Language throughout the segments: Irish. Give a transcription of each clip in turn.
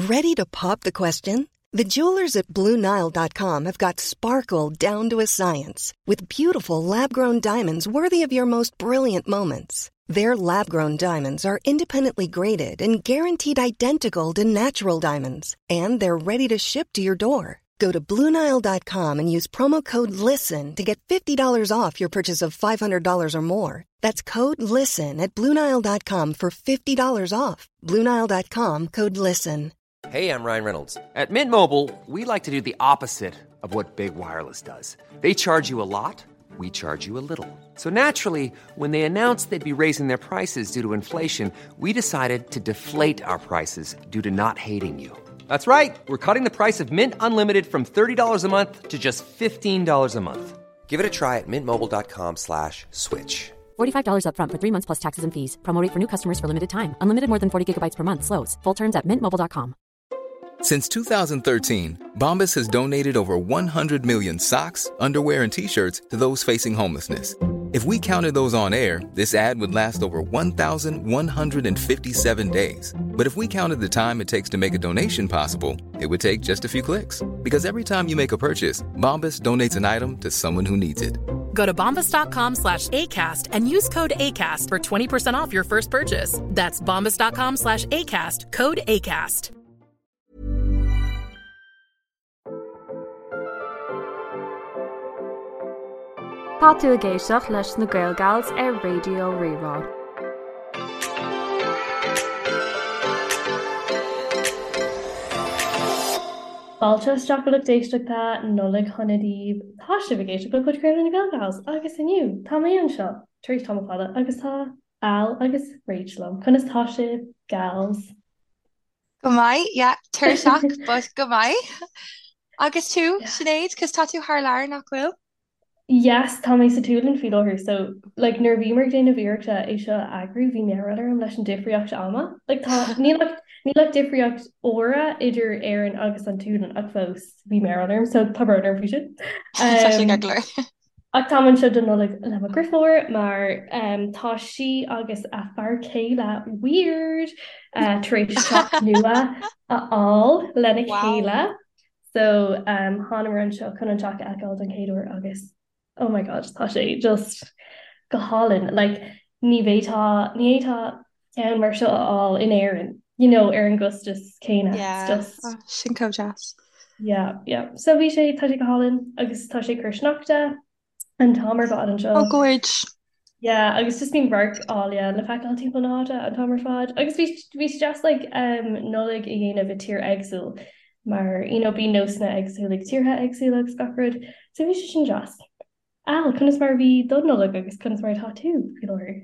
Ready to pop the question? The jewelers at BlueNile.com have got sparkle down to a science with beautiful lab grown diamonds worthy of your most brilliant moments. Their lab grown diamonds are independently graded and guaranteed identical to natural diamonds, and they're ready to ship to your door. Go to BlueNile.com and use promo code LISTEN to get $50 off your purchase of $500 or more. That's code LISTEN at BlueNile.com for $50 off. BlueNile.com code LISTEN. Hey, I'm Ryan Reynolds. At Mint Mobile, we like to do the opposite of what Big Wireless does. They charge you a lot, we charge you a little. So naturally, when they announced they'd be raising their prices due to inflation, we decided to deflate our prices due to not hating you. That's right. We're cutting the price of Mint Unlimited from $30 a month to just $15 a month. Give it a try at mintmobile.com slash switch. $45 upfront for three months plus taxes and fees. Promo rate for new customers for limited time. Unlimited more than 40 gigabytes per month. Slows. Full terms at mintmobile.com. Since 2013, Bombas has donated over 100 million socks, underwear, and t shirts to those facing homelessness. If we counted those on air, this ad would last over 1,157 days. But if we counted the time it takes to make a donation possible, it would take just a few clicks. Because every time you make a purchase, Bombas donates an item to someone who needs it. Go to bombas.com slash ACAST and use code ACAST for 20% off your first purchase. That's bombas.com slash ACAST, code ACAST. Tá tú ag éisteacht leis na Gael Gals ar Raidió Rí-Rá. Fáilte isteach a lucht éisteachta, Nollaig shona daoibh. Tá sibh ag éisteacht le podchraoladh na Gael Gals agus inniu tá mé anseo tar éis tamall fada agus tá Al agus Rach liom. Conas tá sibh, gals? Go maith, yeah, tuirseach, but go maith. Agus tú, Sinéad, cos tá tú thar lear, nach bhfuil? Yes, tá mé sa tSualainn faoi láthair, so like nuair a bhíomar ag déanamh iarrachta é seo a eagrú, bhí mearbhall orm leis an difríocht ama. Like tá, níl ach, níl ach difríocht uaire idir Éirinn agus an tSualainn ach fós bhí mearbhall orm, so tá brón orm faoi sin. Tá sé ceart go leor. Ach táim anseo don Nollaig le mo dheirfiúr mar tá sí agus a fear céile weird tar éis teach nua a fháil lena chéile. So thánamar anseo chun an teach a fheiceáil don chéad uair agus oh my god tá sé just go hálainn. Like ní bhféadfá ní fhéadfá ceann mar seo a fháil in Éirinn, you know, ar an gcostas céanna. It's Yeah, just oh, sin chomh deas. Yeah, yeah. So bhí sé, tá sé go hálainn agus tá sé ag cur sneachta an t-am ar fad anseo. Oh, gorge. Yeah, agus just bíonn radhairc áille le feiceáil timpeall na háite an t-am ar fad. Agus bhí bhí sé deas like um, Nollaig a dhéanamh i tír éagsúil mar you know, bíonn nósanna éagsúla ag tíortha éagsúla agus gach rud. So bhí sé sin deas. Al, conas mar a bhí do Nollaig agus conas mar atá tú faoi láthair?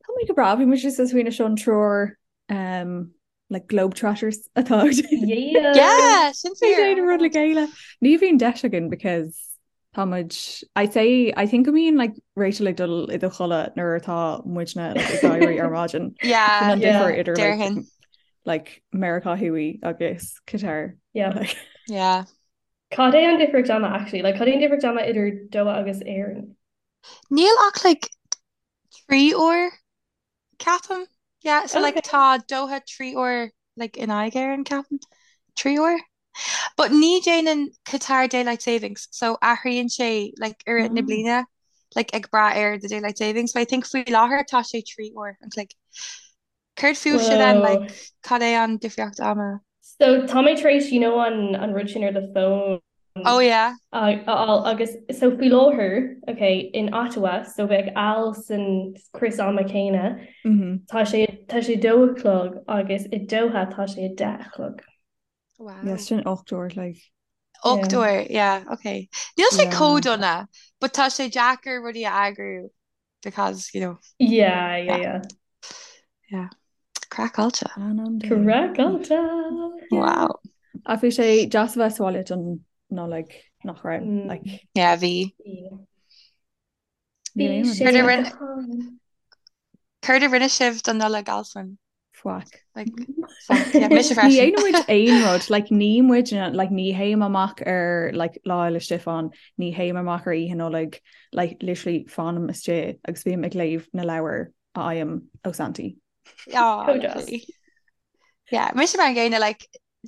Tá mé go breá, bhí muid just ag smaoineamh seo an triúr um, like globetrotters atá Yeah! Yeah, sin fíor. Déanamh rud le chéile. Ní bhíonn deis againn because tá muid I say I think go mbíonn like Rachel ag dul i do chodladh nuair atá muidne like, ag éirí ar maidin. Yeah, Sin an Yeah. difear idir like, déarfainn. like Meiriceá Thuaidh agus Qatar. Yeah. Like, Yeah. Cad é an difríocht ama actually? Like cad é an difríocht ama idir Doha agus Éirinn? Níl ach like 3 uair ceapaim. Yeah, so like Okay. tá Doha 3 uair like in aghaidh Éireann ceapaim. 3 uair? But ní déanann Qatar daylight savings, so athraíonn sé like i rith na oh. bliana like ag brath ar the daylight savings. So I think faoi láthair tá sé 3 uair an chloig. Céard fúibhse then, Whoa. like cad é an difríocht ama? So tá mé tar éis you know an an rud sin ar do phone Oh yeah. a fháil agus so faoi láthair okay in Ottawa so bheadh Al san crios ama céanna Mm-hmm. tá sé tá sé dó a chlog agus i Doha tá sé a deich a chlog. Wow. Yes, sin 8 uair like. 8 Yeah. uair, yeah, okay. Níl sé Yeah. chomh dona, but tá sé deacair rudaí a eagrú because, you know, Yeah, yeah, yeah, yeah. yeah. Craiceáilte. An an day. Craiceáilte. Yeah. Wow. Ach bhí sé deas a bheith sa bhaile don Nollaig nach raibh Mm. like Yeah, bhí. Yeah. níl Bhí aon rud sé Céard a go rinne hálainn. céard a rinne sibh don Nollaig Alswyn? Faic. Like, faic. Yeah, mise Ní freisin. dhéanann muid aon rud, like ní muid like ní théim amach ar like Lá Fhéile Stiofáin, ní théim amach ar Oíche Nollag, like literally fanaim istigh agus bím ag léamh na leabhar a fhaighim ó Santaí. Oh, Chomh deas. lovely. Yeah, mise mar an gcéanna, like.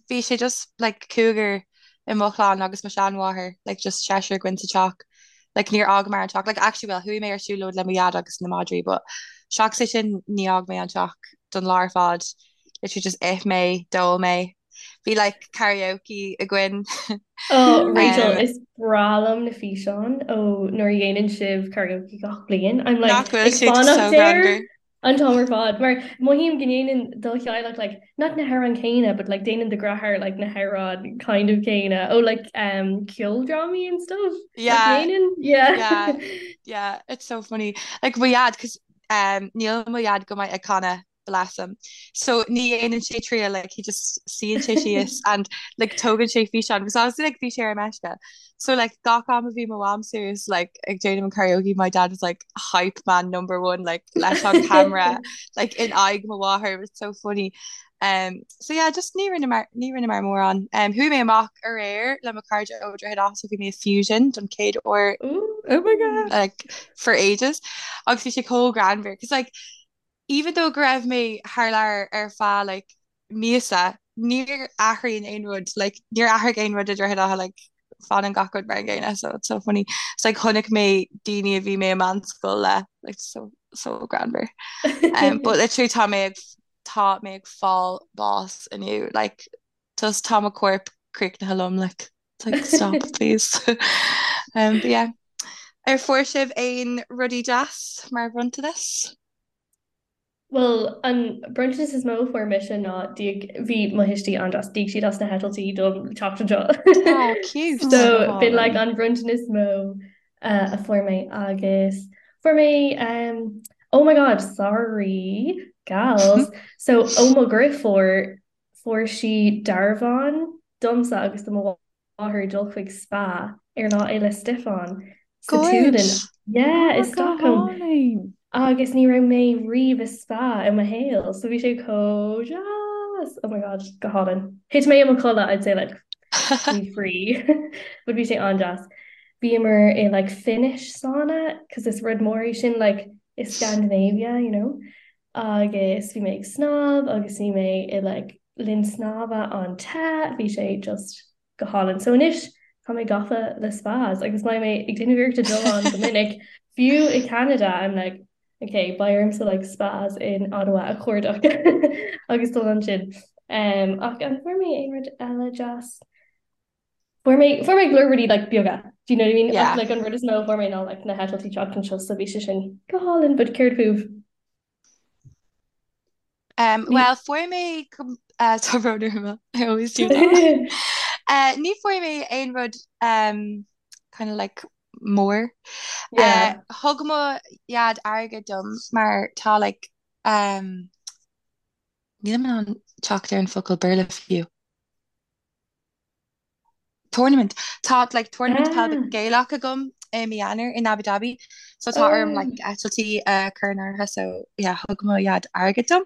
bhí sé just like cúigear i mo chlann agus mo sheanmháthair, like just seisear againn sa teach. Like níor fhágamar an teach, like actually well chuaigh mé ar siúlóid le mo dhaid agus na madraí but seachas é sin ní fhág mé an teach don lá ar fad. Literally just ith mé, d'ól mé. Bhí like karaoke againn. Oh Rachel, is breá liom na físeáin ó nuair a dhéanann sibh karaoke gach bliain. I'm like Nach bhfuil ag siad fanacht so air greannmhar? an t-am ar fad mar mothaím go ndéanann do theaghlach like not na hamhráin céanna but like déanann do dheartháir like na hamhráin kind of céanna ó like um ceoldrámaí and stuff. Nach Yeah, ndéanann? Yeah. yeah, yeah, it's so funny. Like mo dhaid, 'cause um níl mo dhaid go maith ag canadh. bless him. So ní dhéanann sé triail like he just suíonn sé síos and like tógann sé físeán because obviously like bhí sé ar meisce. So like gach am a bhí mo mham suas like ag déanamh an karaoke my dad was like hype man number one like leis an camera like in aghaidh mo mháthair it was so funny. Um, so yeah, just ní rinneamar ní rinneamar mórán. Um, chuaigh mé amach aréir le mo chairde ó Droichead Átha so bhí mé i Fusion don chéad uair Ooh. Oh my God. like for ages agus bhí sé chomh greannmhar cos like even though go raibh mé thar lear ar feadh like míosa, níor athraíonn aon rud, like níor athraigh aon rud i Droichead Átha like fanann gach rud mar an gcéanna so it's so funny. It's like chonaic mé daoine a bhí mé i meánscoil le like so so greannmhar. Um, but literally tá mé ag tá mé ag fáil bás inniu like just tá mo corp críochnaithe liom like it's like stop please. Um, but yeah. Ar fuair sibh aon rudaí deas mar bhronntanas? Bhuel, an bronntanas is mó a fuair mise ná d'íoc, bhí mo thuistí an-deas, d'íoc siad as na heitiltí dom teacht anseo. Oh, cute. So b'in like an bronntanas is mó uh, a fuair mé agus fuair mé um, oh my god, sorry, gals. So ó mo dheirfiúr fuair sí dearbhán domsa agus do mo mháthair dul chuig spa ar Lá Fhéile Stiofáin sa tSualainn. Yeah, i Stockholm. Agus ní raibh mé riamh i spa i mo shaol, so bhí sé chomh deas! Oh my god, go hálainn. Thit mé i mo chodladh, I'd say like faoi thrí, but bhí sé an-deas. Bhíomar i like Finnish sauna, cos is rud mór é sin like i Scandinavia, you know. Agus bhí mé ag snámh agus bhí mé i like linn snámha an-te, bhí sé just go hálainn. So anois tá mé gafa le spas agus beidh mé ag déanamh iarrachta dul ann go minic, fiú i Canada I'm like ok beidh ormsa like spas in Ottawa a chuardach agus dul ansin. Um, ach an fuair mé aon rud eile deas? Fuair mé fuair mé go leor rudaí like beaga, do you know what I mean? Yeah. Ach like an rud is mó a fuair mé ná like na heitiltí teacht anseo so bhí sé sin go hálainn, but céard fúibh? Um, well, fuair mé uh, tá brón orm, I always do that. Uh, ní fuair mé aon rud um, kind of like mór. Uh, Yeah. thug mo dhaid airgead dom mar tá like um, nílim in ann teacht ar an focal Béarla fiú. Tournament. Tá like tournament peil Ah. Gaelach agam i mí Eanáir in Abu Dhabi so tá orm like Oh, eitiltí a chur in áirithe so yeah thug mo dhaid airgead dom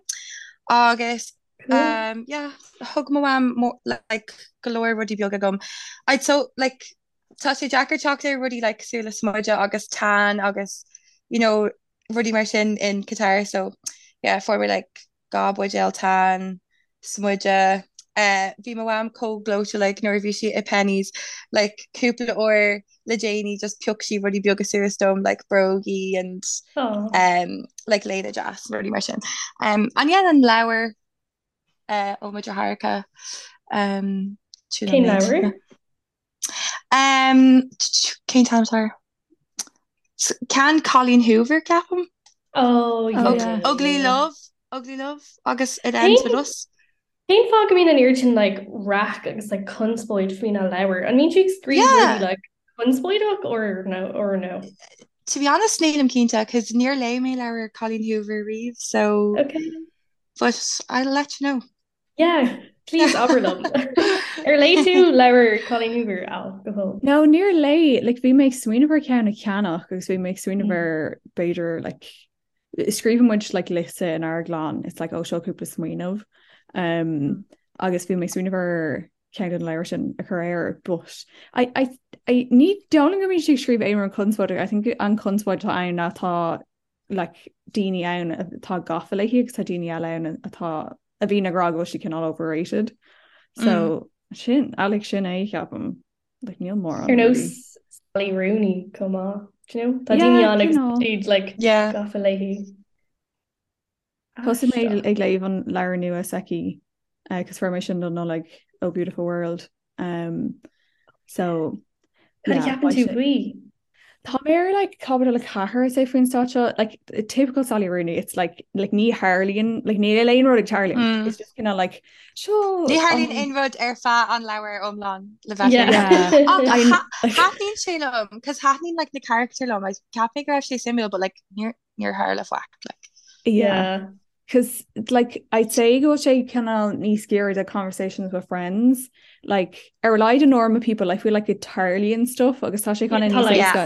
agus cool. um yeah thug mo mham mo like go leor rudaí beaga dom. I'd so like tá sé deacair teacht ar rudaí like cosúil le smuideadh agus tan agus you know rudaí mar sin in Qatar so yeah fuair mé like 2 buidéal tan, smuideadh. Bhí mo mham chomh gleoite like nuair a bhí sí i Penneys like cúpla uair le déanaí just phioc sí rudaí beaga suas dom like brógaí and um, like léine deas rudaí mar sin. Um, and yeah, an leabhar uh, ó mo dheartháireacha um, sin an Cén méid. leabhar? Um, cén t-ainm atá air? Ceann Colleen Hoover, ceapaim. Oh, yeah. Ugly Love, Ugly Love agus It Ends With Us. Cén fáth go mbíonn an oiread sin like raic agus like conspóid faoina leabhar? An mbíonn sí ag scríobh rudaí like conspóideach or no or no? To be honest, nílim cinnte, cos níor léigh mé leabhar Colleen Hoover riamh, so Okay. but I'll let you know. Yeah, please abair liom. Ar léigh tú leabhar Colleen Hoover, Al, go fóill? No, níor léigh, like bhí mé ag smaoineamh ar ceann a cheannach agus bhí mé ag smaoineamh ar b'fhéidir like scríobhann muid like liosta inár gclann, it's like oh seo cúpla smaoineamh. Um, agus bhí mé ag smaoineamh ar ceann den leabhar sin a chur air, but I, I, I, ní dóigh liom go mbíonn sí ag scríobh aon rud conspóideach, I think an conspóid atá ann ná tá like, daoine ann atá gafa léi agus tá daoine eile ann atá a bhíonn ag rá go bhfuil sí cineál overrated. So sin like sin é ceapaim like níl mórán. Ar nós Sally Rooney chomh maith, do you know? Tá daoine ann agus siad like gafa léi. Thosaigh mé ag léamh an leabhar nua s'aici agus fuair mé sin don Nollaig Oh Beautiful World. Um, so Cad a cheapann tú faoi? Tá mé ar like caibidil 4 say faoin staid seo like typical Sally Rooney it's like like ní tharlaíonn like níl aon rud ag tarlú mm. it's just kind of like seo Ní tharlaíonn aon rud ar feadh an leabhair iomlán le bheith Thaitníonn sé liom cos thaitníonn like na character liom like cheap mé go raibh sé suimiúil but like níor níor tharla faic like. Yeah. Cos like I'd say go bhfuil sé cineál níos giorra do conversations with friends like ar a laghad in normal people I feel like it tarlaíonn stuff agus tá sé kind of níos éasca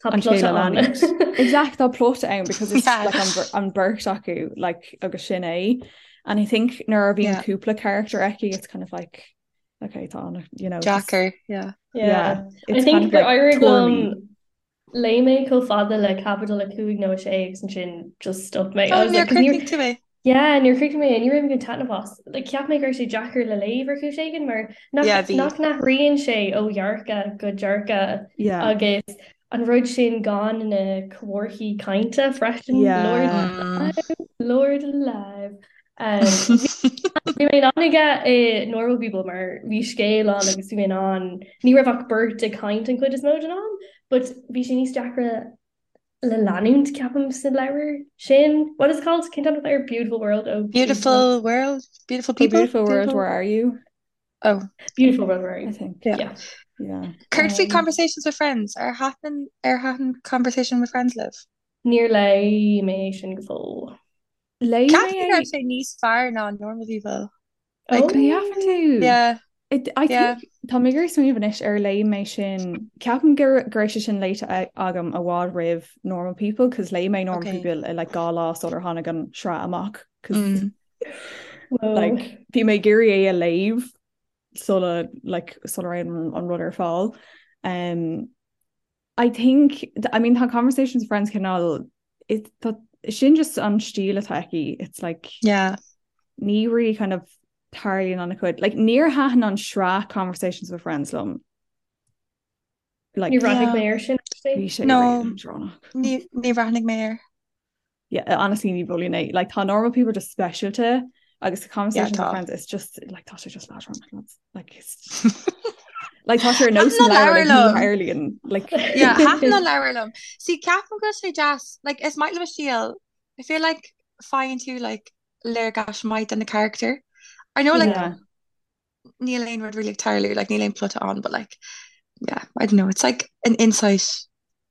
an scéal a leanúint. Exact tá plot ann because it's yeah. like an, an beirt acu like agus sin é and I think nuair a bhíonn cúpla character aici it's kind of like okay tá you know Deacair yeah. Yeah. yeah. I think gur éirigh liom Léigh mé chomh fada le caibidil 5 nó 6 agus ansin just stop mé. Oh, níor chríochnaigh tú é? Yeah, níor chríochnaigh mé é, ní raibh mé ag taitneamh as. Like, cheap mé go raibh sé deacair le léamh ar chúis éigin mar nach, yeah, nach n-athraíonn sé ó dhearcadh go dearcadh yeah. agus an rud sin gan na comharthaí cainte freisin. Yeah. Lord alive, Lord alive. Bhí mé in ann aige i Normal People mar bhí scéal ann agus bhí mé in ann, ní raibh ach beirt ag caint an chuid is mó den am, but bhí sé níos deacra le leanúint ceapaim sa leabhar sin. What is it called? Cén t-ainm air? Beautiful World oh Beautiful World? Beautiful People? Beautiful World, Where Are You? Oh. Beautiful World, Where Are You? I think. Yeah. Yeah. Yeah. Céard faoi Conversations with Friends? Ar thaitin ar thaitin Conversation with Friends libh? Níor léigh mé sin go fóill. Léigh mé Ceapaim go raibh sé níos fearr ná Normal People. Like, An gceapann tú? Yeah. It, I Yeah. think tá mé ag iarraidh smaoineamh anois ar léigh mé sin ceapaim go go raibh sé sin léite agam i bhfad roimh Normal People cos léigh mé Normal Okay. People i like 2 lá sular tháinig an sraith amach cos Mm. Whoa. like bhí mé ag iarraidh é a léamh sula like sula raibh an, an rud ar fáil. Um, I think, I mean tá Conversations with Friends cineál it, tá, sin just an stíl atá aici, it's like Yeah. ní really kind of tarlaíonn an-chuid. Like níor thaitin an sraith Conversations with Friends liom. Like, Níor bhreathnaigh mé air sin actually. Bhí sé No. really leadránach. Ní ní bhreathnaigh mé air. Yeah, honestly ní mholfainn é. Like tá normal people just speisialta agus the conversations Yeah, with tá. friends it's just like tá sé just leadránach lads. Like it's like tá sé ar nós Thaitin an leabhar leabhar like ní liom. tharlaíonn like Yeah, thaitin an leabhar liom. See, ceapaim go bhfuil sé deas, like is maith liom a stíl. I feel like faigheann tú like léargas maith de na character. I know like yeah. níl aon rud really ag tarlú, like níl aon plota ann, but like yeah, I don't know, it's like an insight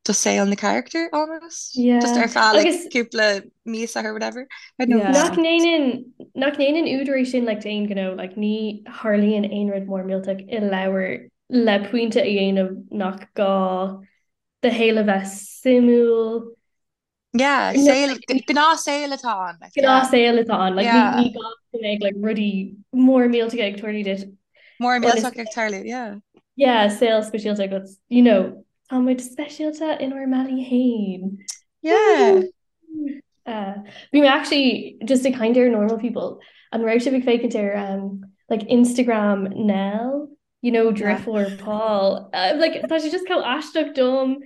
do saol na character almost. Yeah. Just ar feadh like Agus cúpla míosa or whatever. I don't know. Yeah. nach ndéanann nach ndéanann údar é sin like d'aon ghnó, like ní tharlaíonn aon rud mór millteach i leabhar le pointe a dhéanamh nach gá do shaol a bheith suimiúil. Yeah, No, saol, like, gnáthshaol atá ann. Like, yeah. gnáthshaol atá ann. Like, ní, Yeah. ní gá go mbeadh like, rudaí mór millteacha ag tarlú duit. Mór Ionas millteach ag tarlú, yeah. Yeah, saol speisialta agat, you know, tá muid speisialta inár mbealaí féin. Yeah. Uh, bhí mé actually just ag caint ar normal people. An raibh sibh ag féachaint ar um, like Instagram Nell, you know, Yeah. deirfiúr Paul. Uh, like, tá sé just chomh aisteach dom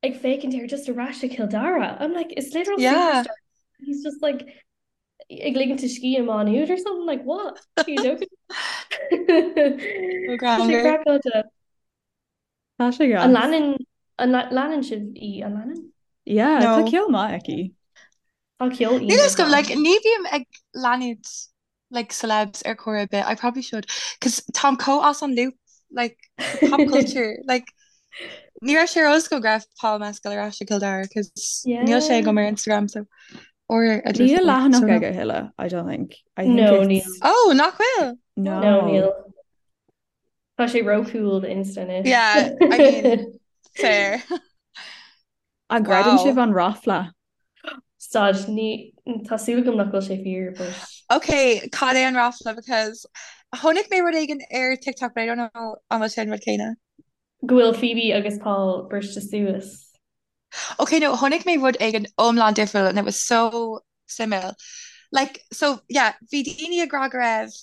ag féachaint air just ar ais i Cill Dara. I'm like, it's literal Yeah. superstar. He's just like ag ligint a scíth i Má Nuad or something like what? Are you joking? Ó Tá sé greannmhar. craiceáilte. Tá sé An gas. leanann an leanann sibh í an leanann? Yeah, tá No. ceol maith aici. Tá ceol Níl a iontach fhios agam, like, aici. ní bhím ag leanúint like celebs ar chor ar bith. I probably should cos táim chomh as an loop like pop culture like ní raibh sé ar eolas agam go raibh Paul Mescal ar ais i Cill Dara cos níl sé Yeah. agam ar Instagram so or a Níl deirfiúr so leathanach no. aige a thuilleadh, I don't think. I think No, níl. it's Oh, nach bhfuil? No, no. níl. Tá sé ró-cool do Insta anois. Yeah, I mean, fair. An gcreideann Wow. sibh an ráfla? Stad, ní, tá súil agam nach bhfuil sé fíor, but. Ok, cad é an ráfla because chonaic mé rud éigin ar TikTok but I don't know an bhfuil sé an rud céanna. Go bhfuil Phoebe agus Paul briste suas. Ok, no, chonaic mé rud éigin iomlán difriúil and it was so suimiúil. Like, so, yeah, bhí daoine ag rá go raibh.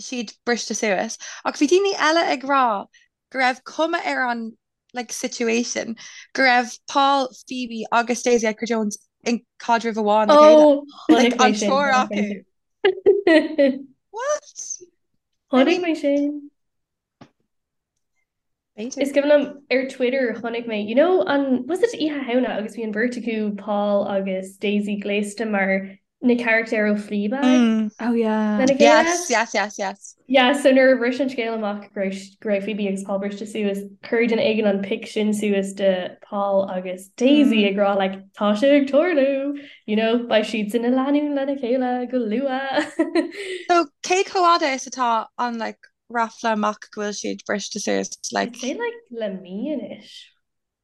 siad briste suas ach bhí daoine eile ag rá go raibh cuma ar an like situation go raibh Paul, Phoebe agus Daisy Edgar-Jones in caidreamh amháin le chéile. Oh, Like chonaic mé an sin, triúr chonaic mé acu. sin. What? I Chonaic mean, mé sin. b'fhéidir. Is cuimhin liom ar Twitter chonaic mé, you know, an, was it Oíche Shamhna agus bhí an bheirt acu, Paul agus Daisy, gléasta mar na carachtair ó Fleabag Mm. Oh yeah. lena chéile? Yes, yes, yes, yes. Yeah, so nuair a bhris an scéal amach go raibh go raibh Phoebe agus Paul briste suas, chuir duine éigin an pic sin suas de Paul agus Daisy Mm. ag rá like tá sé ag tarlú, you know, beidh siad ina lánúin lena chéile go luath. So cé chomh fhada is atá an like ráfla amach go bhfuil siad briste suas I'd like say like le mí anois.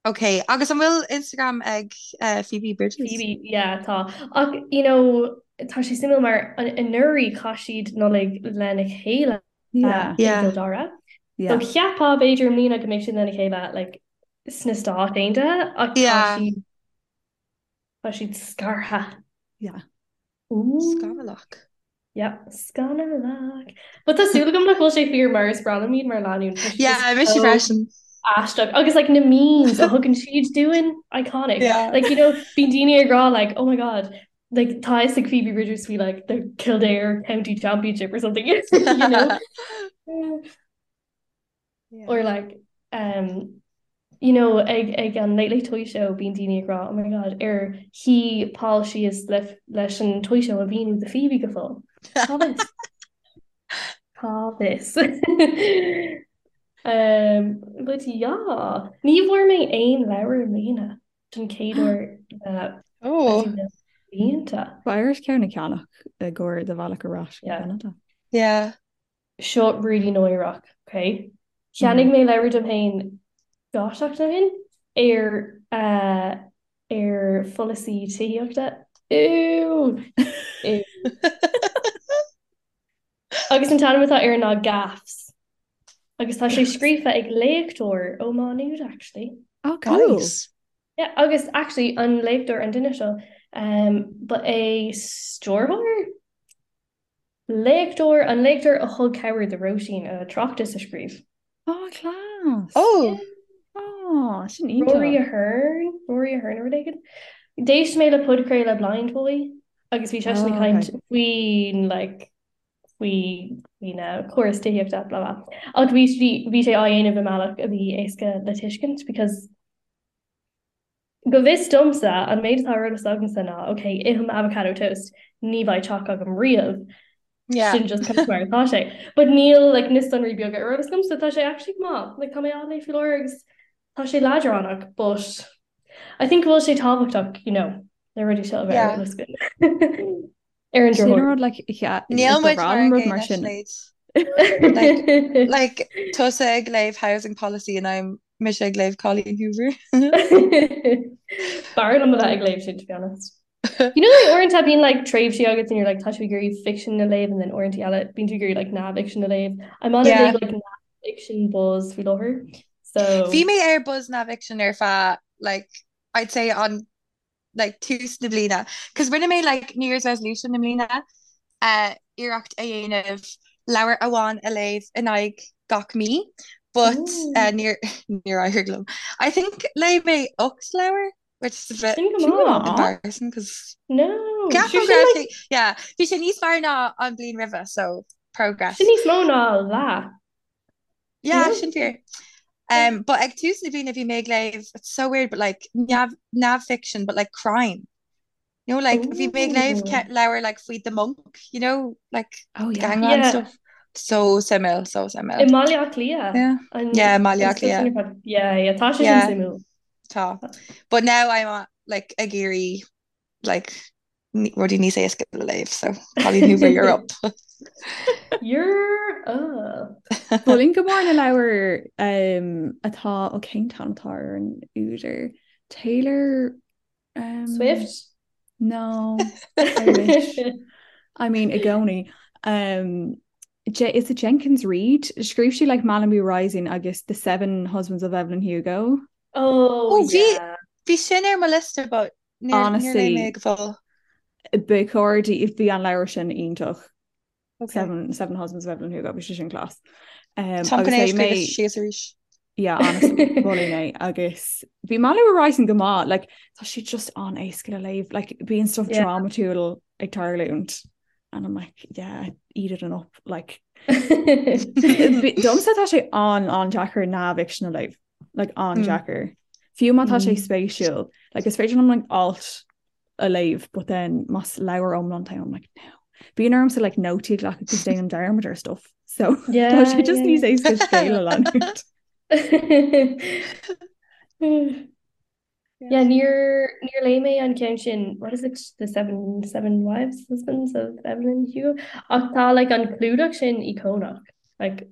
Ok, agus an bhfuil Instagram ag uh, Phoebe Bridgers? Phoebe, yeah, tá. Ach, you know, tá sé suimiúil mar anuraidh chaith siad Nollaig lena chéile Yeah. i Yeah. gCill Dara. Yeah. So cheapfá b'fhéidir i mbliana go mbeidh siad lena chéile like, sna Stáit Aontaithe ach tá Yeah. siad tá siad scartha. Yeah. Ooh. Scannalach. Yeah, scannalach. But tá súil agam nach bhfuil sé fíor mar is breá liom iad mar lánúin. Tá siad Yeah, just mise so freisin. aisteach. Agus like na memes a thugann siad dúinn, iconic. Yeah. Like, you know, bíonn daoine ag rá like, oh my god, like tá fhios ag Phoebe Bridgers faoi like the Kildare County Championship or something, you know? Yeah. Or like, um, you know, ag, ag an Late Late Toy Show bíonn daoine ag rá, oh my god, ar shuigh Paul síos le, leis an Toy Show a mhíniú do Phoebe go fóill. Cá bhfios? Cá bhfios? Um, but yeah, ní bhfuair mé aon leabhar i mbliana don chéad uair le Oh. I don't know, blianta. Beidh ort ceann a cheannach i gcomhair do bhealach ar ais go Yeah. Ceanada. Yeah. Seo really náireach, ok? Cheannaigh mé leabhar dom féin 2 seachtain ó shin ar eh ar pholasaí tithíochta. Ew! Ew. Agus an t-ainm atá air ná Gaffs. Agus tá sé scríofa ag léachtóir ó Má Nuad actually. Oh, cool. Nice. Yeah, agus actually an léachtóir an duine seo um, ba é stiúrthóir? Léachtóir, an léachtóir a thug cabhair do Róisín a tráchtas a scríobh. Oh, class! Oh! Oh, sin iontach. Rory Ahern, Rory Ahern nó rud éigin. D'éist mé le podchraoladh Blindboy agus bhí seisean ag Oh, caint okay. faoin like faoi faoin córas tithíochta blah blah. Ach bhí bhí sé á dhéanamh i mbealach a bhí éasca le tuiscint because Go bhfios domsa, an méid atá ar eolas agamsa ná, ok, ithim avocado toast, ní bheidh teach agam riamh. Yeah. Sin just kind of mar atá sé. But níl like, na sonraí beaga ar eolas agamsa, tá sé actually go maith. Like, tá mé á léamh faoi láthair agus tá sé leadránach, but I think go bhfuil sé tábhachtach, you know, na rudaí seo a bheith ar Yeah. eolas againn. Ar an Sin drochuair. rud like yeah, Níl ba muid bhreá mar liom an rud gcéanna mar sin. Sinéad. Like like tusa ag léamh housing policy and I'm mise ag léamh Colleen Hoover. B'fhearr liom a bheith ag léamh sin to be honest. You know like uaireanta bíonn like tréimhsí agat and you're like tá tú ag iarraidh fiction a léamh and then uaireanta eile bíonn tú ag iarraidh like neamhfhicsean a léamh. I'm on a Yeah. big like neamhfhiction buzz faoi láthair. So Bhí mé ar buzz neamhfhicsean ar feadh like I'd say on like tús na bliana. Cos rinne mé like New Year's resolution i mbliana uh, iarracht a dhéanamh leabhar amháin a léamh in aghaidh gach mí, but uh, níor níor éirigh liom. I think léigh mé 8 leabhar, which is a bit Sin go maith. embarrassing cos No. Ceapaim Sure go sin raibh like sé yeah, bhí sé níos fearr ná an bhliain roimhe, so progress. sin níos mó ná leath. Yeah, No? sin fíor. Um, but ag tús na bliana bhí mé ag léamh, it's so weird, but like neamh neamhfhicsean, but like crime. You know, like bhí mé ag léamh Ooh. ce- leabhar like faoi The Monk, you know, like Oh the yeah. gangland Yeah. stuff. So suimiúil, so I suimiúil. mBaile Átha Cliath. Yeah. An Yeah, Mbaile an Átha stuff sin Cliath. ar fad. Yeah, yeah, tá sé sin Yeah, suimiúil. tá. But now I'm uh, like ag iarraidh like rudaí níos éasca le léamh, so Colleen Hoover, you're up. You're up. Mholfainn go mór na leabhair um, atá ó cén t-ainm atá ar an údar Taylor um, Swift? No, I wish. I mean i gcónaí. Um, J is it Jenkins Reid? Scríobh sí like Malibu Rising agus The Seven Husbands of Evelyn Hugo. Oh, Oh, bhí yeah. bhí sin ar mo liosta, but níor níor léigh mé Honestly, go fóill. ba chóir di bhí an leabhar sin iontach. Okay. Seven, Seven Husbands of Evelyn Hugo, bhí sé sin class. Um, Táim chun é a scríobh síos arís. Yeah, honestly, mholfainn é agus bhí Malibu Rising go maith, like, tá sé just an-éasca le léamh, like, bíonn stuff yeah. drámatúil ag tarlúint and I'm like, yeah, eat it up, like domsa tá sé an an-deacair neamhfhicsean a léamh, like an-deacair. Mm. Fiú má tá sé mm. spéisiúil, like is féidir liom like alt a léamh but then más leabhar iomlán atá ann I'm like no. Bíonn ormsa like nótaí a ghlacadh cos déanaim dearmad ar stuff so yeah, tá sé just níos éasca scéal a leanúint. Yeah, níor níor léigh mé an ceann sin what is it the seven seven wives husbands of Evelyn Hugo ach tá like an clúdach sin íocónach like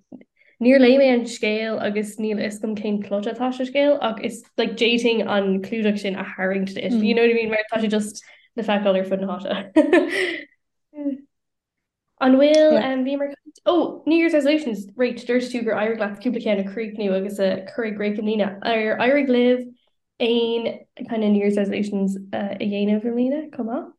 Níor léigh mé an scéal agus níl a fhios agam cén plot atá sa scéal ach is like d'fhéadfainn an clúdach sin a tharraingt duit, you know what I mean? Mar tá sé just le feiceáil ar fud na háite. An bhfuil um, bhíomar Oh, New Year's resolutions, right, dúirt tú gur éirigh leat cúpla ceann a chríochnú agus a chur i gcrích i mbliana. Ar éirigh libh aon kind of New Year's resolutions uh, a dhéanamh i mbliana chomh maith?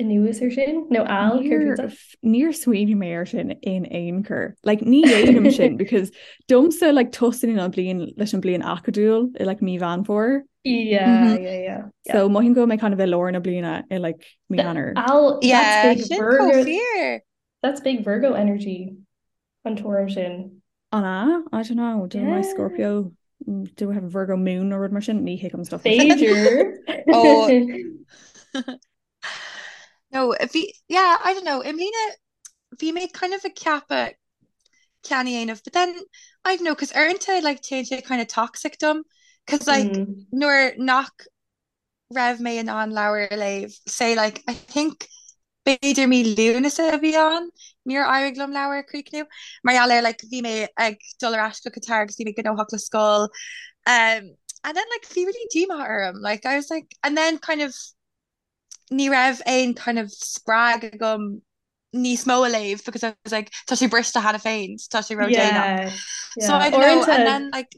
Anuas ar sin nó Al Níor smaoinigh mé ar sin in aon chor. Like ní dhéanaim sin because domsa like tosaíonn an bliain leis an bliain acadúil i like mí Mheán Fómhair. Yeah, mm-hmm. yeah, yeah. So mothaím go mbeidh kind of i lár na bliana i like mí Eanáir. Al yeah, that's big Virgo. That's big Virgo energy an tuairim sin. An ea? I don't know. Do yeah. my Scorpio mm, do I have a Virgo moon nó rud mar sin? Ní thuigim stuff. B'fhéidir. Oh. No, bhí, yeah, I don't know, i mbliana bhí mé kind of ag ceapadh ceann a dhéanamh, but then, I don't know, cos uaireanta like téann sé kind of toxic dom, cos like mm. nuair nach raibh mé in ann leabhar a léamh, say like I think b'fhéidir mí Lúnasa a bhí ann, níor éirigh liom leabhar a chríochnú, mar gheall ar like bhí mé ag dul ar ais go Qatar agus bhí mé gnóthach le scoil, um, and then like bhí really díomá orm, like I was like, and then kind of ní raibh aon kind of spreag agam níos mó a léamh because I was like tá sé briste cheana féin, tá sé ródhéanach. Yeah, So I don't know, and then like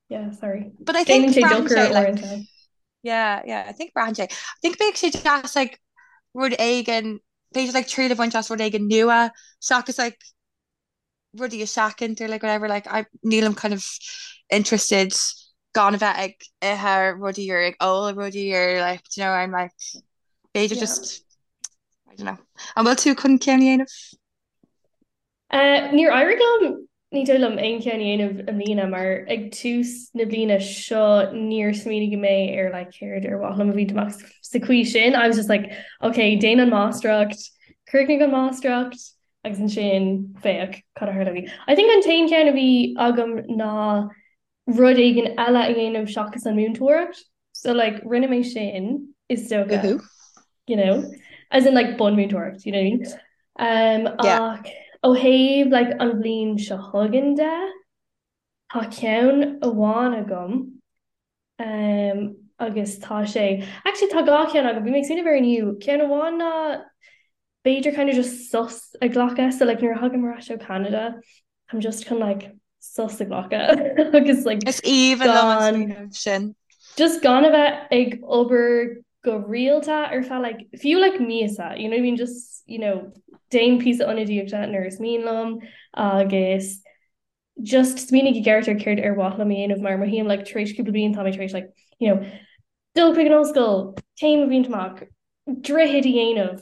yeah, sorry. But I think braitheann sé like yeah, yeah, I think braitheann sé. I think bheadh sé deas like rud éigin, b'fhéidir like triail a bhaint as rud éigin nua seachas like rudaí a sheachaint or like whatever like I nílim kind of interested gan a bheith ag ithe rudaí or ag ól rudaí or like do you know I'm like b'fhéidir yeah. just I don't know. An bhfuil tú chun ceann a dhéanamh? Uh, níor éirigh liom ní dóigh liom aon cheann a dhéanamh i mbliana mar ag tús na bliana seo níor smaoinigh mé ar like céard ar mhaith liom a bhaint amach sa chaoi sin. I was just like okay, déan an máistreacht, críochnaigh an máistreacht, agus ansin féach cad a tharlóidh. I think an t-aon cheann a bhí agam ná rud éigin eile a dhéanamh seachas an múinteoireacht. So like rinne mé sin is dócha. You know, as in like bunmúinteoireacht, you know what I mean? Um, yeah. Ach ó thaobh like an bhliain seo chugainn de, tá ceann amháin agam Um, agus tá sé, actually tá dhá cheann agam, bhí mé ag smaoineamh air inniu, ceann amháin ná b'fhéidir kind of just sos a ghlacadh, so like nuair a thagaim ar ais ó Canada, I'm just chun like sos a ghlacadh agus like Is aoibhinn liom an smaoineamh sin. Just gan a bheith ag obair go rialta ar feadh like fiú like míosa, you know what I mean, just you know, déan píosa ionadaíochta nuair is mian liom agus just smaoinigh i gceart ar céard ar mhaith liom a dhéanamh mar mothaím like tar éis cúpla bliain tá mé tar éis like you know dul chuig an ollscoil, céim a bhaint amach, droichead a dhéanamh,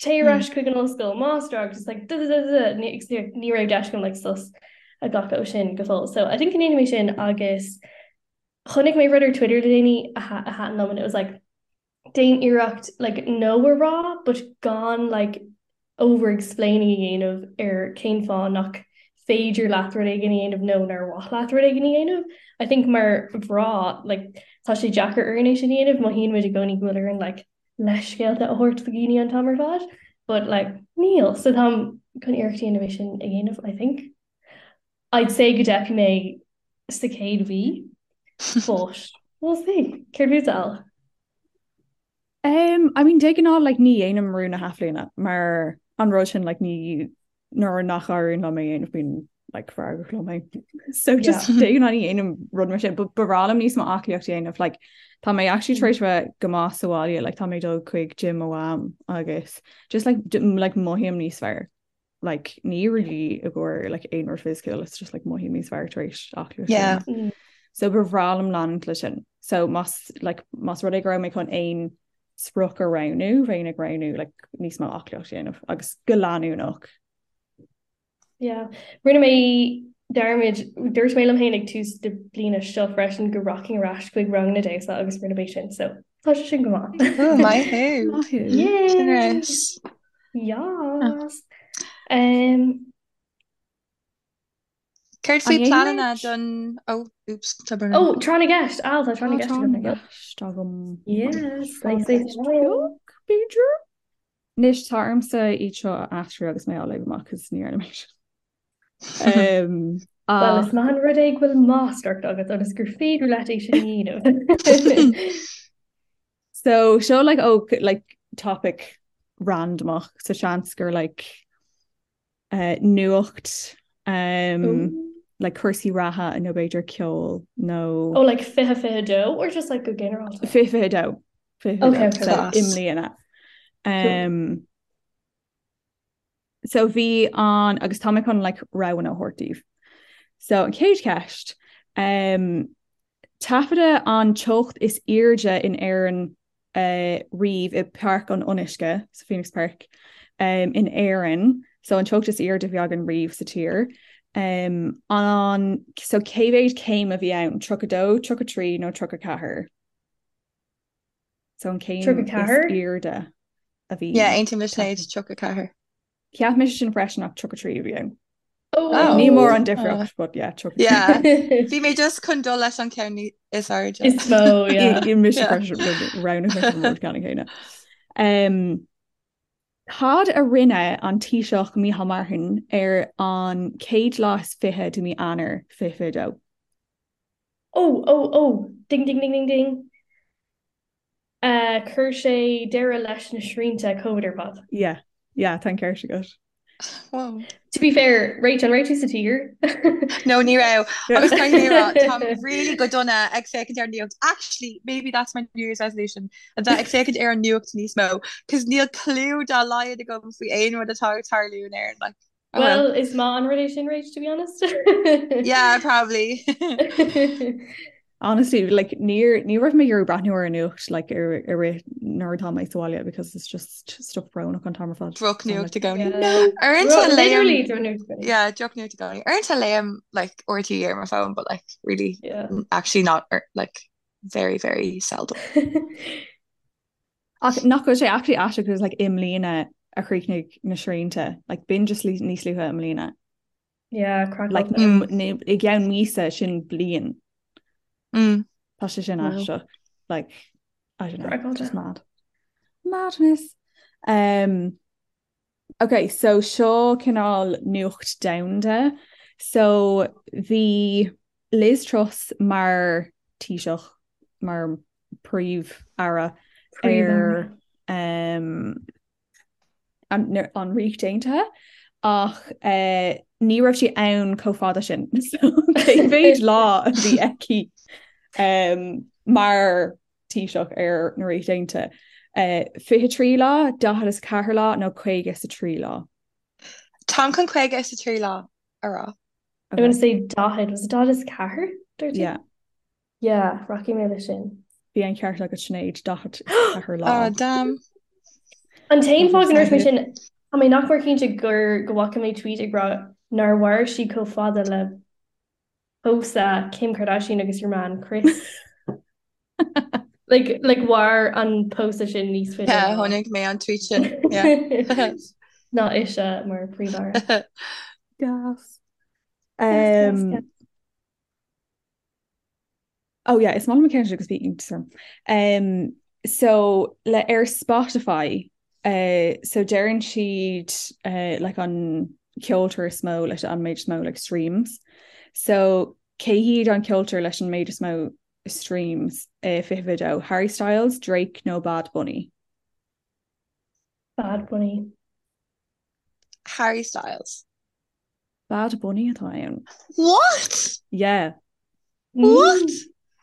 téigh ar ais chuig an ollscoil, máistreacht, just like duh-duh-duh-duh ní ní raibh deis agam like sos a ghlacadh ó sin go fóill. So I think go ndéanfaidh mé sin agus chonaic mé rud ar Twitter le déanaí a a thaitin liom and it was like déan iarracht like no a rá but gan like over explaining a dhéanamh ar cén fáth nach féidir leat rud éigin a dhéanamh nó nár mhaith leat rud éigin a dhéanamh. I think mar mhná like tá sé deacair orainn é sin a dhéanamh, mothaíonn muid i gcónaí go bhfuil orainn like leithscéalta a thabhairt do dhaoine an t-am ar fad but like níl. So táim chun iarracht a dhéanamh é sin a dhéanamh I think. I'd say go dteipfidh mé sa chéad mhí but we'll see. Céard fút Al? Um, I mean, de ghnáth like, ní dhéanaim rún na hathbhliana mar an rud sin like, ní nuair nach éiríonn liom é a dhéanamh bím like, feargach liom féin. So just de ghnáth ní dhéanaim rud mar sin, but ba bhreá liom níos mó aclaíocht a dhéanamh like, tá mé actually tar éis bheith go maith sa bhaile, like, tá mé ag dul chuig gym mo mham agus just like, like mothaím níos fearr. like ní really i gcomhair like aon rud fisiciúil it's just like mothaím níos fearr tar éis aclaíocht yeah. mm. So ba bhreá liom leanúint leis sin. So más like más rud é go raibh mé chun aon sprioc a roghnú bheinn ag roghnú like níos mó aclaíocht a dhéanamh agus go leanúnach. Yeah. Rinne mé dearmad dúirt mé liom féin ag tús na bliana seo freisin go rachainn ar ais chuig ranganna damhsa agus rinne mé sin so tá sé sin go maith. Oh, maith thú. Maith thú. Yay! Yes. Um, Céard faoi pleananna don oh, oops, tá brón. Oh, tráth na gceist Al tá tráth na gceist agam. gceist agam. Yes, b'fhéidir. Anois tá ormsa iad seo a aistriú agus mé á léamh amach cos ní dhearna mé sin. Um, Well, is maith an rud é go bhfuil máistreacht agat ionas gur féidir leat é sin a dhéanamh. So seo like oh like topic randomach so seans gur like uh, nuacht um, like cúrsaí reatha nó b'fhéidir ceol nó Oh like 2022 or just like go ginearálta? 2022 Okay, okay. So, i mbliana. Um, so bhí an agus tá mé chun like roghanna a thabhairt daoibh. So an chéad cheist um, taifeadadh an teocht is airde in Éirinn uh, riamh i Páirc an Fhionnuisce sa Phoenix Park um, in Éirinn, so an teocht is airde a bhí againn riamh sa tír. Um, an so cé mhéad céim a bhí ann 32, 33 nó 34? So an céim is airde a bhí. Yeah, aontaím le Sinéad 34. Cheap mise sin freisin ach 33 a bhí ann. Oh. Ní mór an difríocht, but yeah, 33. Yeah. Bhí mé just chun dul leis an ceann is airde. Is mó, yeah. I mise freisin roghnaigh mise an rud ceann céanna. Um, Cad a rinne an Taoiseach Micheál Martin ar an chéad lá is fiche de mí Eanáir 2022? Oh, oh, oh, ding, ding, ding, ding, ding. Uh, chuir sé deireadh leis na srianta Covid ar fad. Yeah, yeah, tá an ceart agat. Wow. To be fair, Rach, an raibh tú sa tír? No, ní raibh. Agus caithfidh mé a rá, táim really go dona ag féachaint ar an nuacht. Actually, maybe that's my New Year's resolution, a bheith ag féachaint ar an nuacht níos mó, cos níl clue dá laghad agam faoi aon rud atá ag tarlú in Éirinn. Like, oh well. Well, is maith an rud é sin, Rach, to be honest. Yeah, probably. Honestly, like níor ní raibh mé ag iarraidh breathnú ar an nuacht like ar ar rith nuair atá mé sa bhaile because it's just stuff brónach an t-am ar fad. Drochnuacht i gcónaí. No. Uaireanta léim Yeah, drochnuacht i gcónaí. Uaireanta léim like RTÉ ar my phone, but like really yeah. actually not er, like very very seldom. Ach nach bhfuil sé actually aisteach because like i mbliana a chríochnaigh na srianta, like b'in just níos luaithe i mbliana. Yeah, crack Like mm. i gceann míosa sin bliain. Mm. Tá sé sin aisteach. Like I don't know, just mad. Madness. Um, okay, so seo cineál nuacht domhanda. So bhí Liz Truss mar Taoiseach mar príomh-aire ar um, an Ríocht Aontaithe ach ní raibh sí ann chomh fada sin so cé mhéad lá a bhí aici mar Taoiseach ar na Ríocht Aontaithe? 23 lá, 44 lá nó 53 lá? Táim chun 53 lá a rá. I'm gonna say 40, was it 44? Yeah. Yeah, rachaidh mé leis sin. Bhí an ceart agat Sinéad, 44 lá. Oh, damn. An t-aon fáth go ndúirt mé sin, tá mé nach mór cinnte gur go bhfaca mé tweet ag rá nár mhair sí chomh fada le pósadh Kim Kardashian agus her man Kris. Like, like mhair an pósadh sin níos faide. Yeah, chonaic mé an tweet sin. Yeah. Ná ise mar príomh-aire. Gas. Gas, gas, Um, gas. Oh yeah, is maith liom an ceann seo agus bhí iontas orm. Um, so le ar Spotify, uh, so deireann siad uh, like an ceoltóir is mó leis an méid is mó like streams. So cé hiad an ceoltóir leis an méid is mó streams uh, 2022? Harry Styles, Drake nó Bad Bunny? Bad Bunny. Harry Styles. Bad Bunny atá ann. What? Yeah. What?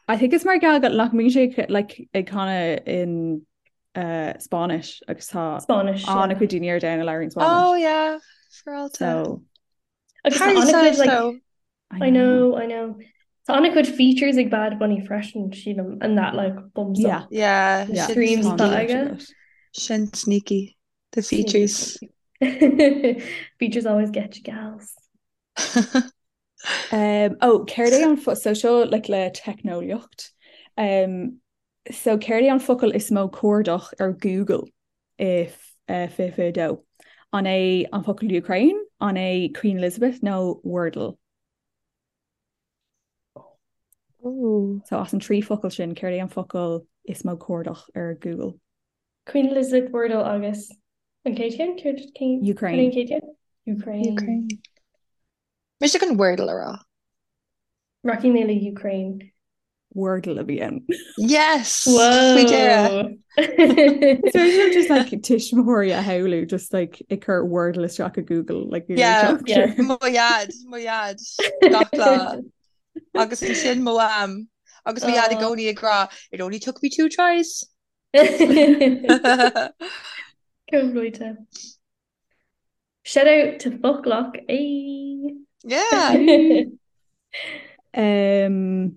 I think it's mar gheall go nach mbíonn sé like ag canadh in uh, Spáinnis agus tá Spáinnis, yeah. an-chuid daoine ar domhan a labhraíonn Spáinnis. Oh yeah. Féaráilte. So Agus tá Harry an-chuid Styles like though. I I know. know, I know. Tá an-chuid features ag Bad Bunny freisin, sílim, and that like bumps Yeah. up Yeah, Yeah. sin streams Tá atá sneaky. an-chuid aige. agat. Sin sneaky. The Sneaky, features. sneaky. Features always get you gals. Um, oh, céard é an fo so seo like le teicneolaíocht. Um, so céard é an focal is mó cuardach ar Google i 2022? An é an focal Ukraine, an é Queen Elizabeth nó Wordle? Ooh. So as an 3 focal sin, céard é an focal is mó cuardach ar Google? Queen Elizabeth, Wordle agus an chéad cheann? Céard cén céard Ukraine. an chéad cheann? Ukraine. Ukraine. Mise chun Wordle a rá. Rachaidh mé le Ukraine. Wordle a bhí ann. Yes! Faoi dheireadh. Whoa! So sin just like tuismitheoirí a shamhlú just like ag cur Wordle isteach i Google like you're Yeah, Yeah. mo dhaid, mo dhaid, gach lá. Agus ansin mo mham. Agus mo dhaid i Oh. gcónaí ag rá, it only took me two tries. Chomh luaite. Shout out to Foclach. Ay. Yeah. Um,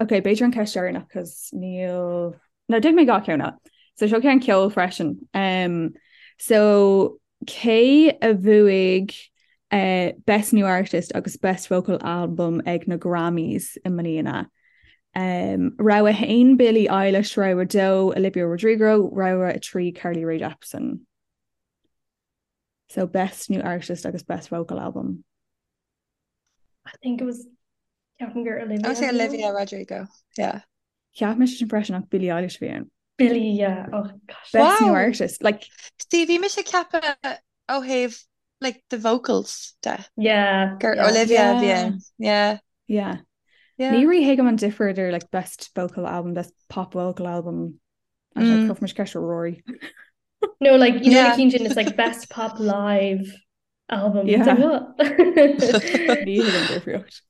ok, b'fhéidir an ceist deireanach cos níl No, déanfaidh mé dhá cheann eile. So seo ceann ceoil freisin. Um, so cé a bhuaigh uh, Best New Artist agus Best Vocal Album ag na Grammys i mbliana? Um, rogha 1 Billie Eilish, rogha 2 Olivia Rodrigo, rogha 3 Carly Rae Jepsen. So Best New Artist agus Best Vocal Album. I think it was ceapaim gur I Olivia would say a bhí ann. Olivia Rodrigo. Yeah. Cheap mise sin freisin ach Billie Eilish a bhí ann. Billie, yeah. Oh gosh. Best New Wow. Artist. Like, See, bhí mise ag ceapadh ó thaobh like the vocals de. Yeah, Gur yeah. Olivia a bhí yeah. ann. Yeah. Yeah. Yeah. Ní rí-thuigim an difear idir like best vocal album, best pop vocal album. I don't know, Mm. cuirfidh mise ceist ar Rory. No, like you know Yeah. na cinn sin, it's like best pop live album. It's like Yeah. what? Ní thuigim an difríocht.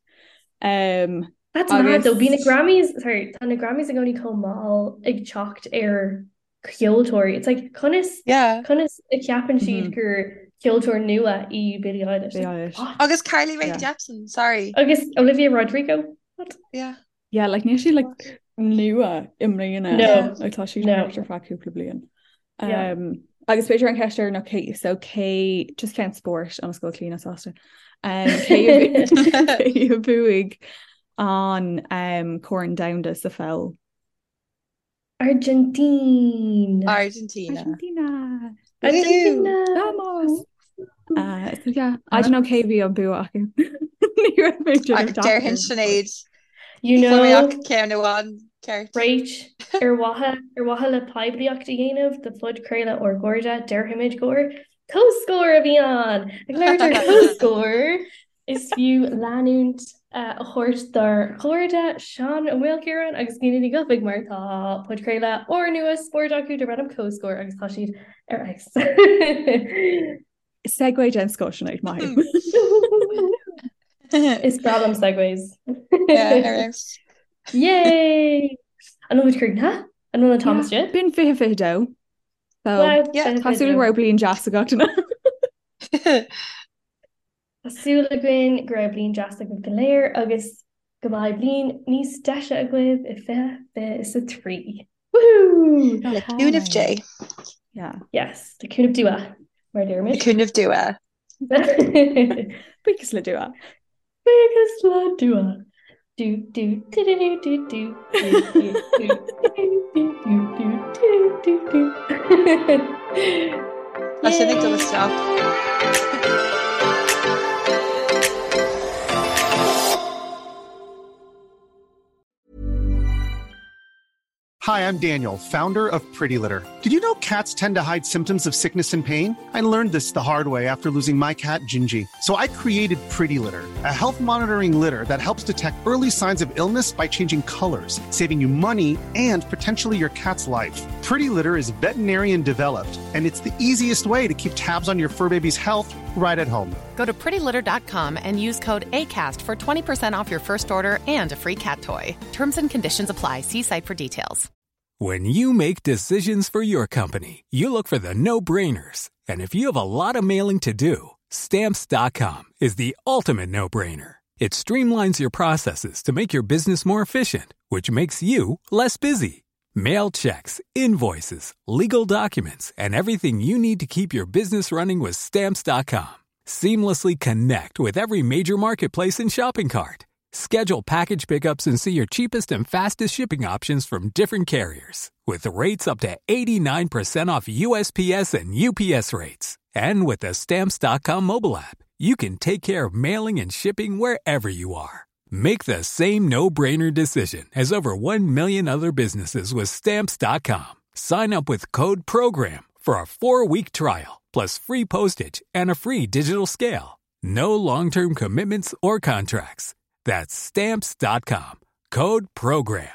Um, That's mad though. Bhí na agus Grammys, sorry, tá na Grammys i gcónaí chomh mall ag teacht ar ceoltóirí. It's like conas Yeah. conas a cheapann siad mhm, gur ceoltóir nua í Billie Eilish. Billie Like Eilish. what? Agus Carly Rae Yeah. Jepsen, sorry. Agus Olivia Rodrigo. What? Yeah. Yeah, like níl sí like nua i mbliana. No. Yeah. Like tá sí No. thart ar feadh cúpla bliain. Yeah. Um, agus b'fhéidir an ceist deireanach cé so cé just ceann spóirt ionas go bhfuil Clíona sásta. Um, cé a cé a bhuaigh an um, Corn Domhanda sa pheil? Argentina. Argentina. Argentina. Woohoo! Argentina. Vamos! Uh, so yeah, I don't know cé bhí an bua acu. Ní raibh mé ag déanamh Déarfainn deacair, but Sinéad. You Fuair mé ach know, ceann amháin ceart. Rach, ar mhaithe ar mhaithe le poiblíocht a dhéanamh do phodchraoladh ár gcairde, déarfaimid gur comhscór a bhí ann. Ag labhairt ar comhscór, is fiú leanúint a thabhairt dár gcairde Seán Ó Maoilchiaráin agus Clíona Ní Dhufaigh mar tá podchraoladh úrnua spóirt acu darb ainm Comhscór agus tá siad ar fheabhas. Segue den scoth Sinéad, maith thú. Is breá liom segues. Yeah, ar fheabhas. Yay! An bhfuil muid críochnaithe? An bhfuil an t-am Yeah, istigh? b'in 2022. So, Wow, Yeah. tá súil go 2022. raibh bliain deas ag gach duine. Tá súil againn go raibh bliain deas agaibh go léir agus go mbeidh bliain níos deise agaibh i 2023. Woohoo! Go Le cúnamh Dé. hálainn. Yeah. Yes, le cúnamh Dua, mar a Le deirimid. cúnamh Dua. Buíochas le Dua. Buíochas le Dua. Do do do do do do do do do do do do do do do do. Tá sin ag dul Yay! isteach. Hi, I'm Daniel, founder of Pretty Litter. Did you know cats tend to hide symptoms of sickness and pain? I learned this the hard way after losing my cat, Gingy. So I created Pretty Litter, a health monitoring litter that helps detect early signs of illness by changing colors, saving you money and potentially your cat's life. Pretty Litter is veterinarian developed, and it's the easiest way to keep tabs on your fur baby's health right at home. Go to prettylitter.com and use code ACAST for 20% off your first order and a free cat toy. Terms and conditions apply. See site for details. When you make decisions for your company, you look for the no-brainers. And if you have a lot of mailing to do, stamps.com is the ultimate no-brainer. It streamlines your processes to make your business more efficient, which makes you less busy. Mail checks, invoices, legal documents, and everything you need to keep your business running with stamps.com. Seamlessly connect with every major marketplace and shopping cart. Schedule package pickups and see your cheapest and fastest shipping options from different carriers. With rates up to 89% off USPS and UPS rates. And with the Stamps.com mobile app, you can take care of mailing and shipping wherever you are. Make the same no brainer decision as over 1 million other businesses with Stamps.com. Sign up with code PROGRAM for a four week trial, plus free postage and a free digital scale. No long term commitments or contracts. That's Stamps.com. Code PROGRAM.